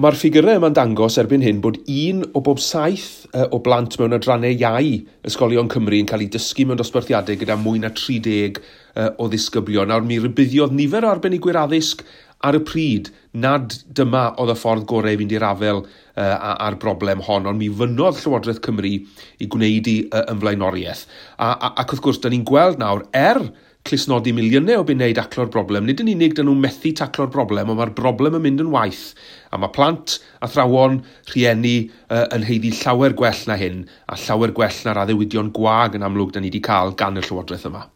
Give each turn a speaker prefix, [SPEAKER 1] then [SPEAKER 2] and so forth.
[SPEAKER 1] Ond mae'r ffigurau yma'n dangos erbyn hyn bod un o bob saith o blant mewn adrannau iau ysgolion Cymru yn cael ei dysgu mewn dosbarthiadau gyda mwy na 30 o ddisgyblion. Nawr mi rybuddiodd nifer o arbenigwyr addysg ar y pryd nad dyma oedd y ffordd gorau i fynd i'r afael a'r broblem hon, ond mi fynnodd Llywodraeth Cymru i gwneud i yn flaenoriaeth. A, a, ac wrth gwrs, da ni'n gweld nawr, er clustnodi miliynau o bunnau i daclo'r broblem, nid yn unig dyn nhw'n methu taclo'r broblem, ond mae'r broblem yn mynd yn waeth. A mae plant, athrawon, rhieni yn haeddu llawer gwell na hyn, a llawer gwell na'r addewidion gwag yn amlwg da ni wedi cael gan y Llywodraeth yma.